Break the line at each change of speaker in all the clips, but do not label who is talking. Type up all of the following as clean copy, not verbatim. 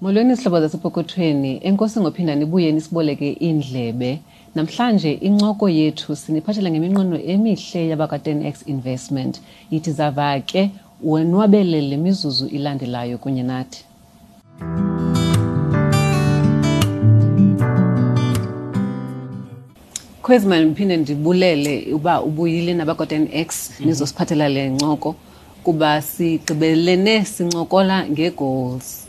Molweni zihlobo zasepokothweni, enkosi ngophinda nibuye nisiboleke iindlebe. Namhlanje incoko yethu siniphathela ngeminqweno emihle yabakwa-10x Investment. Yithi zava ke wonwabele le mizuzu ilandelayo kunye nathi. Khwezi, mandiphinde ndibulele uba ubuyile nabakwa-10x nizosiphathela le ncoko, kuba sigqibelene sincokola ngee-goals.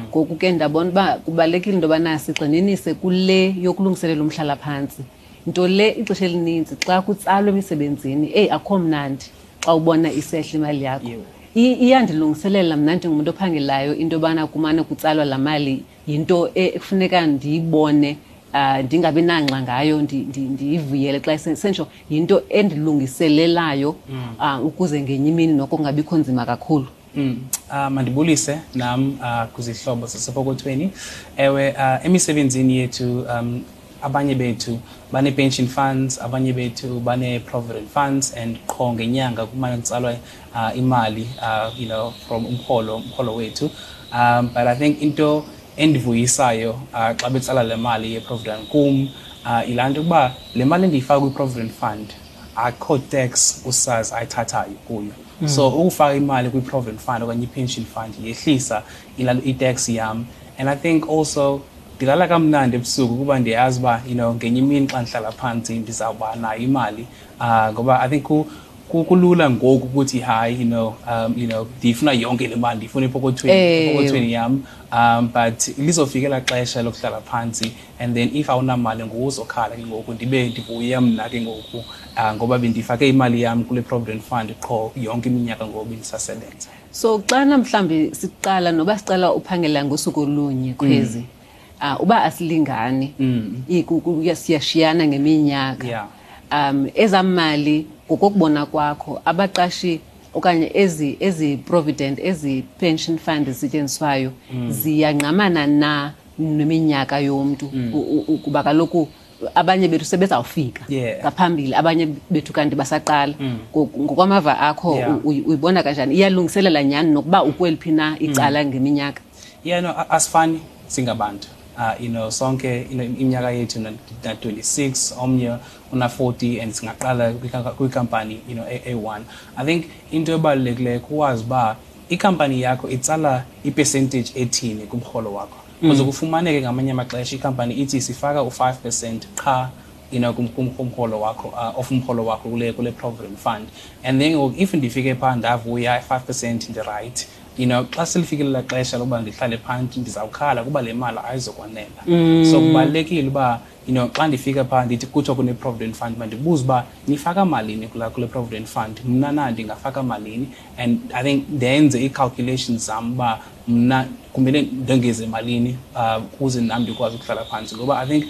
Ngoku ke ndabona uba kubalulekile into yobana sigxininise kule yokulungiselela umhlalaphantsi. Nto le ixesha elinintsi xa kutsalwa emisebenzini, eyi, akho mnandi xa ubona isehla imali yakho. Iyandilungiselela mna ndingumntu ophangelayo into yobana kumane kutsalwa laa mali, yinto ekufuneka ndiyibone, ndingabi nangxa ngayo, ndiyivuyele xa sentsho, yinto endilungiselelayo ukuze ngenye imini noko kungabikho nzima kakhulu.
Mandibulise nam kwizihlobo zasepokothweni. Ewe, emisebenzini yethu abanye bethu bane-pension funds, abanye bethu bane-provident funds, and qho ngenyanga kumane kutsalwa imali from umrholo wethu. But I think into endivuyisayo xa betsala le mali ye-provident kum, yilaa nto ukuba le mali endiyifaka kwi-provident fund akho tax uSARS ayithathayo kuyo. So ukufaka imali kwi-provident fund okanye i-pension fund yehlisa i-tax yam. And I think also ndilala kamnandi ebusuku kuba ndiyazi uba ngenye imini xa ndihlala phantsi ndizawuba nayo imali, ngoba I think kulula ngoku ukuthi hayi, ndiyifuna yonke le mali, ndiyifuna epokothweni yam, but lizofika elaa xesha lokuhlala phantsi, and then if awunamali ngoku uzokhala ke ngoku. Ndibe ndivuya mna ke ngoku, ngoba bendifake imali yam kule provident fund qho yonke iminyaka ngoku bendisasebenza.
So xana mhlawumbi siqala, noba siqala uphangela ngosuku olunye, Khwezi, uba asilingani, siyashiyana ngeminyaka, ezaa mali ngokokubona kwakho abaqashi okanye ezi provident, ezi pension fund zisetyenziswayo, ziyangqamana na neminyaka yomntu? Kuba kaloku abanye bethu sebezawufika ngaphambili, abanye bethu kanti basaqala. Ngokwamava akho, uyibona kanjani? Iyalungiselela nyhani nokuba ukweliphi na icala ngeminyaka?
Yeah, no, asifani singabantu. Sonke iminyaka yethu na 26, omnye una 40, and singaqala kwikampani A1. I think into ebalulekileyo kuwazi uba ikampani yakho itsala i-percentage ethini kumrholo wakho. Kuze kufumaneke ngamanye amaxesha ikampani ithi sifaka u-5% qha kumrholo wakho, of umrholo wakho kule provident fund. And then ngoku if ndifike phaa ndavuya 5%, ndi-right. Xa selifikile xesha lokuba ndihlale phantsi, ndizawukhala kuba le mali ayizokwanela. So kubalulekile uba xa ndifika phaa ndithi kuthiwa kune-provident fund, mandibuze uba nifaka malini kule provident fund, mna na ndingafaka malini, and I think ndenze ii-calculations zam uba mna kumele ndongeze malini ukuze nam ndikwazi ukuhlala phantsi. Ngoba I think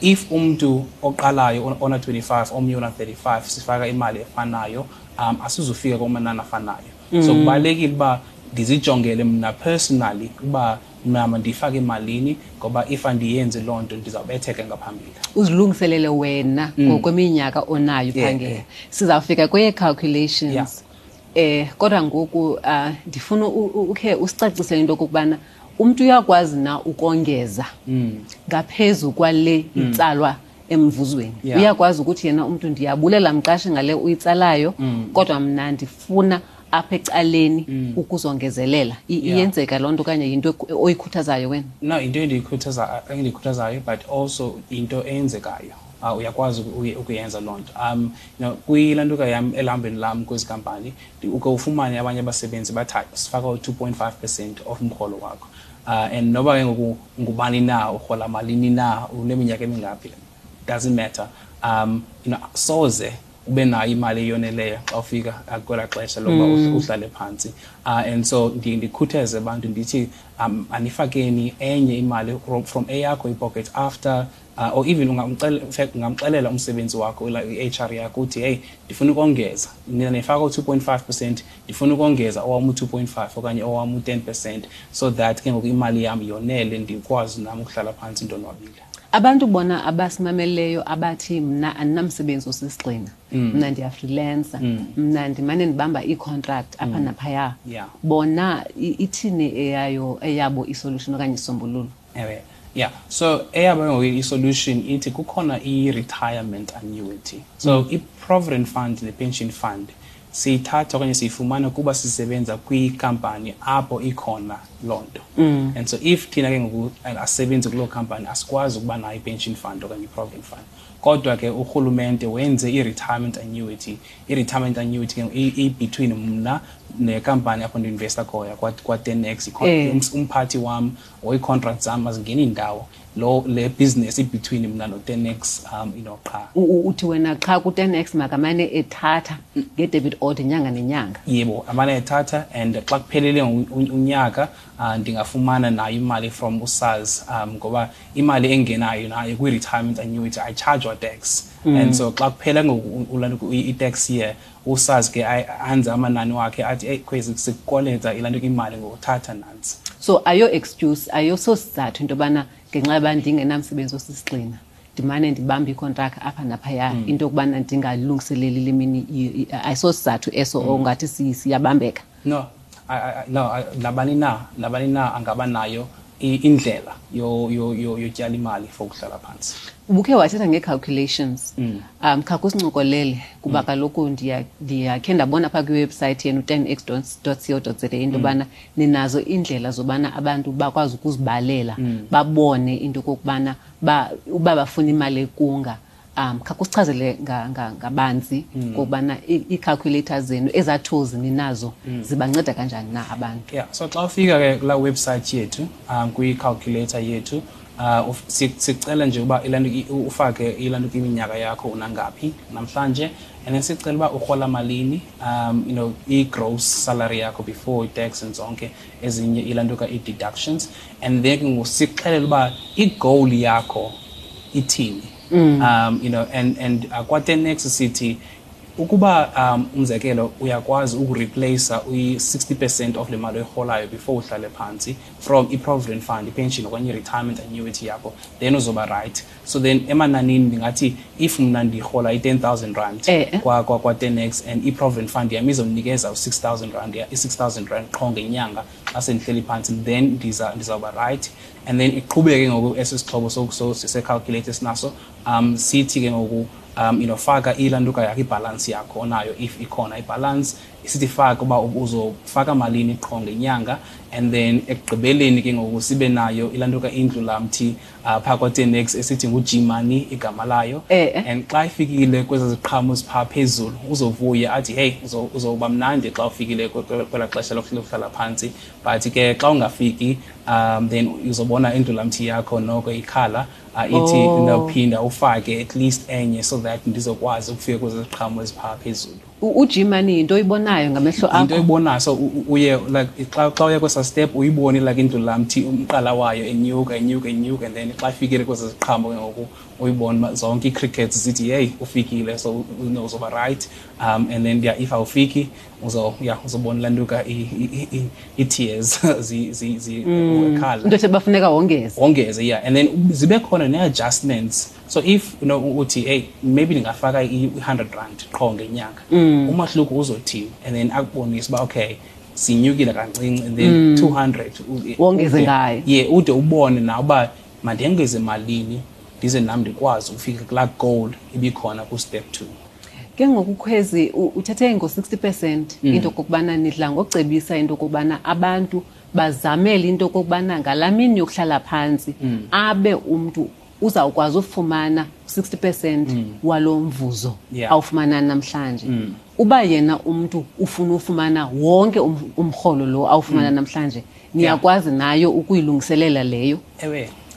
if umntu oqalayo ona 25, omnye ona 35, sifaka imali efanayo, asizufika kumanani afanayo. So kubalulekile uba ndizijongele mna personally uba mna mandifake malini, ngoba if andiyenzi loo nto ndizawubetheka ngaphambili.
Uzilungiselele wena ngokweminyaka onayo phangela. Sizawufika kweye-calculations. Kodwa ngoku ndifuna ukhe usicacisele into okokubana umntu uyakwazi na ukongeza ngaphezu kwale itsalwa emvuzweni. Uyakwazi ukuthi yena umntu, ndiyabulela mqashi ngale uyitsalayo, kodwa mna ndifuna apha ecaleni ukuzongezelela. Iyenzeka loo nto okanye yinto oyikhuthazayo wena?
No, into endiyikhuthazayo, but also into eyenzekayo. Uyakwazi ukuyenza loo nto. Kwilantuka yam elihambeni lam kwezi kampani, uke ufumane abanye abasebenzi bathi hayi, sifaka u-2.5% of umrholo wakho. And noba ke ngoku ngubani na, urhola malini na, uneminyaka emingaphi, doesn't matter. Soze ube nayo imali eyoneleyo xa ufika kwelaa xesha lokuba uhlale phantsi. And so ndikhuthaze abantu ndithi anifakeni enye imali from eyakho ipocket after, or even in fact, ungamxelela umsebenzi wakho, i-HR yakho, uthi hey, ndifuna ukongeza, nina nifaka u-2.5%, ndifuna ukongeza owam u-2.5 okanye owam u-10%, so that ke ngoku imali yam yonele, ndikwazi nam ukuhlala phantsi ndonwabile.
Abantu bona abasimameleyo abathi mna andinamsebenzi osisigxina, mna ndiyafreelancer, mna ndimane ndibamba ii-contract apha naphaya, bona ithini eyayo eyabo isolution okanye isisombululo?
Ewe, yeah, so eyabo ngoku i-solution ithi kukhona i-retirement annuity. So i-provident fund ne-pension fund siyithatha okanye siyifumana kuba sisebenza kwikampani apho ikhona loo nto. And so if thina ke ngoku asebenzi kuloo company, asikwazi ukuba nayo i-pension fund okanye i-provident fund. Kodwa ke urhulumente wenze i-retirement annuity. I-retirement annuity ke i-between mna nekampani apho ndi-investa khoya kwa-10X. Umphathi wam or ii-contract zam azingeni ndawo, lo le business i-between mna no-10X qha.
Uthi wena qha ku-10X makamane ethatha nge-debit order inyanga nenyanga.
Yebo, amane ethatha, and xa kuphelele unyaka ndingafumana nayo imali from uSARS, ngoba imali engenayo nayo kwi-retirement annuity ayichajwa tax. And so xa kuphela ngoku i-tax year, uSARS ke anze amanani wakhe athi, "Hey Khwezi, sikukoleta ilanto imali ngokuthatha nantsi."
So ayo excuse, ayososizathu into yobana ngenxa yoba ndingenamsebenzi osisigxina ndimane ndibamba ikontraka apha naphaya, into yokubana ndingalungiseleli le mini, ayisosizathu eso ongathi siyabambeka.
No, no, nabani na angaba nayo indlela yotyala imali for ukuhlala phantsi.
Ubukhe wathetha ngee-calculations. Khawukusincokolele kuba kaloku ndiyakhe ndabona phaa kwiwebhusayithi yenu 10x.co.za into yobana ninazo iindlela zobana abantu bakwazi ukuzibalela, babone into okokubana uba bafuna imali ekunga. Khawukusichazele ngabanzi ngokubana ii-calculators zenu, ezaa tools ninazo, zibanceda kanjani na abantu?
Yeah, so xa ufika ke kulaa website yethu, kwi-calculator yethu, sicela nje uba ilanto ufake ilanto iminyaka yakho, unangaphi namhlanje, and then sicela uba urhola malini, i-gross salary yakho before i-tax and zonke ezinye ilanto i-deductions, and then ke ngoku sikuxelele uba i-goal yakho ithini. And kwa-10X sithi ukuba umzekelo uyakwazi ukureplace i-60% of le mali oyirholayo before uhlale phantsi from i-provident fund, i-pension okanye i-retirement annuity yakho, then uzoba right. So then emananini ndingathi if mna ndirhola i-10,000 rand kwa-10X and i-provident fund yam izondinikeza u-6,000 rand, i-6,000 rand qho ngenyanga xa sendihleli phantsi, then ndizawuba right. And then iqhubeke ngoku esi sixhobo se-calculator esinaso, sithi ke ngoku faka ilantuka yakho, ibhalansi yakho onayo, if ikhona ibhalansi. Sithi faka uba uzofaka malini qho ngenyanga, and then ekugqibeleni ke ngoku sibe nayo ilantuka indlulamthi phaa kwa-10X esithi ngu-G-Money igama layo. And xa ifikile kwezi ziqhamo ziphaa phezulu, uzovuya athi, "Hey," uzoba mnandi xa ufikile kwelaa xesha lokuhlala phantsi. But ke xa ungafiki, then uzobona indlulamthi yakho noko ikhala, ithi, "Ndawuphinda ufake at least enye so that ndizokwazi ukufika kwezi ziqhamo eziphaa phezulu."
U-G-Money yinto oyibonayo ngamehlo
Into
akho?
oyibonayo. So uye like xa uye kwesa step uyibone like indlulamthi umqala wayo enyuka, enyuka, enyuka, and then xa ifikile kwezi ziqhamo ke ngoku uyibone uba zonke ii-crickets zithi, "Hey, ufikile," so uzoba right. And then yeah, if awufiki yeah, uzobona lantuka ii-tears zikhala.
Into ethi bafuneka wongeze.
Wongeze, yeah, and then zibe khona nee-adjustments. So if uthi, "Hey, maybe ndingafaka i-100 rand qho ngenyanga, umahluko uzothini?" And then akubonise uba okay, sinyukile kancinci, and then 200
Wongeze ngayo.
Yeah, ude ubone nawe uba mandengeze malini ndize nam ndikwazi ukufika kulaa goal ibikhona ku-step 2.
Ke ngoku Khwezi, uthethe ngo-60%, into okokubana nidla ngocebisa into okokubana abantu bazamele into okokubana ngalaa mini yokuhlala phantsi abe umntu uzawukwazi ufumana 60% walo mvuzo awufumana namhlanje. Uba yena umntu ufuna ufumana wonke umrholo lo awufumana namhlanje, niyakwazi nayo ukuyilungiselela leyo?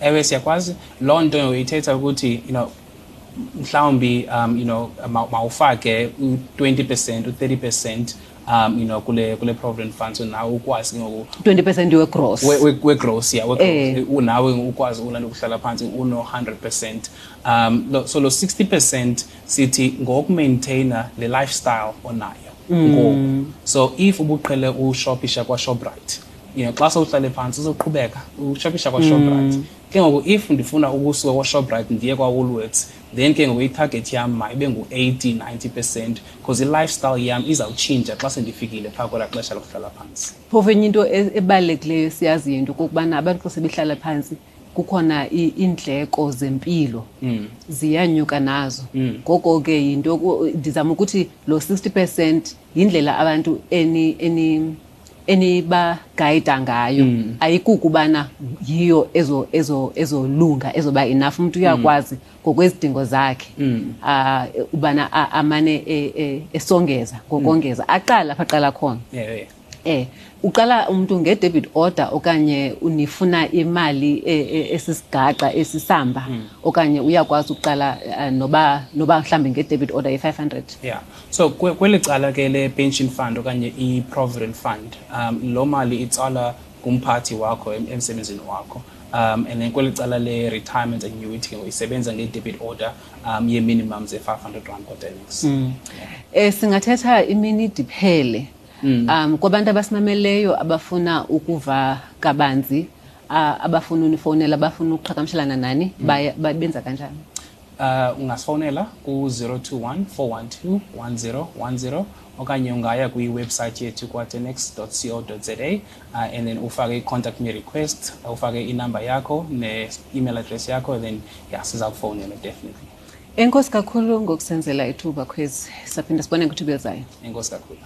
Ewe, siyakwazi. Loo nto ithetha ukuthi mhlawumbi mawufake u-20%, u-30% kule provident fund, so nawe ukwazi ke ngoku
20% we-gross.
We-gross, yeah, we-gross. Nawe ukwazi ulanda ukuhlala phantsi uno 100%. So lo 60% sithi ngokumaintaina le lifestyle onayo ngoku. So if ubuqhele ushopisha kwaShoprite Xa sowuhlale phantsi uzoqhubeka ushopisha kwaShoprite. Ke ngoku if ndifuna ukusuka kwaShoprite ndiye kwaWoolworths, then ke ngoku itarget yam mayibe ngu-80, 90%, because i-lifestyle yam izawutshintsha xa sendifikile phaa kwelaa xesha lokuhlala phantsi.
Phofu enye into ebalulekileyo esiyaziyo into okokubana abantu xa sebehlala phantsi kukhona iindleko zempilo ziyanyuka nazo. Ngoko ke yinto ndizama ukuthi lo 60% yindlela abantu enibagayida ngayo. Ayikukubana yiyo ezolunga ezoba enough. Umuntu uyakwazi ngokwezidingo zakhe ubana amane esongeza ngokongeza, aqala apha aqala khona. Uqala umuntu nge-debit order okanye unifuna imali esisigaxa esisamba, okanye uyakwazi ukuqala noba mhlambe nge-debit order ye-500?
Yeah. So kweli cala ke le pension fund okanye i-provident fund, lo mali itsala kumphathi wakho emsebenzini wakho. And then kweli cala le retirement annuity ke isebenza nge-debit order ye-minimum ze-500 rand kwaTenex.
Singathetha imini diphele. Kwabantu abasimameleyo abafuna ukuva kabanzi, abafuna unifowunela, abafuna ukuqhagamshelana nani, benza kanjani?
Ungasifowunela ku-021 412 1010 okanye ungaya kwi-website yethu kwa-tenex dot co dot za, and then ufake i-contact me request, ufake inamba yakho ne-email address yakho, then siza kufowunela definitely.
Enkosi kakhulu ngokusenzela ithuba, Khwezi. Saphinda sibone kwithuba elizayo.
Enkosi kakhulu.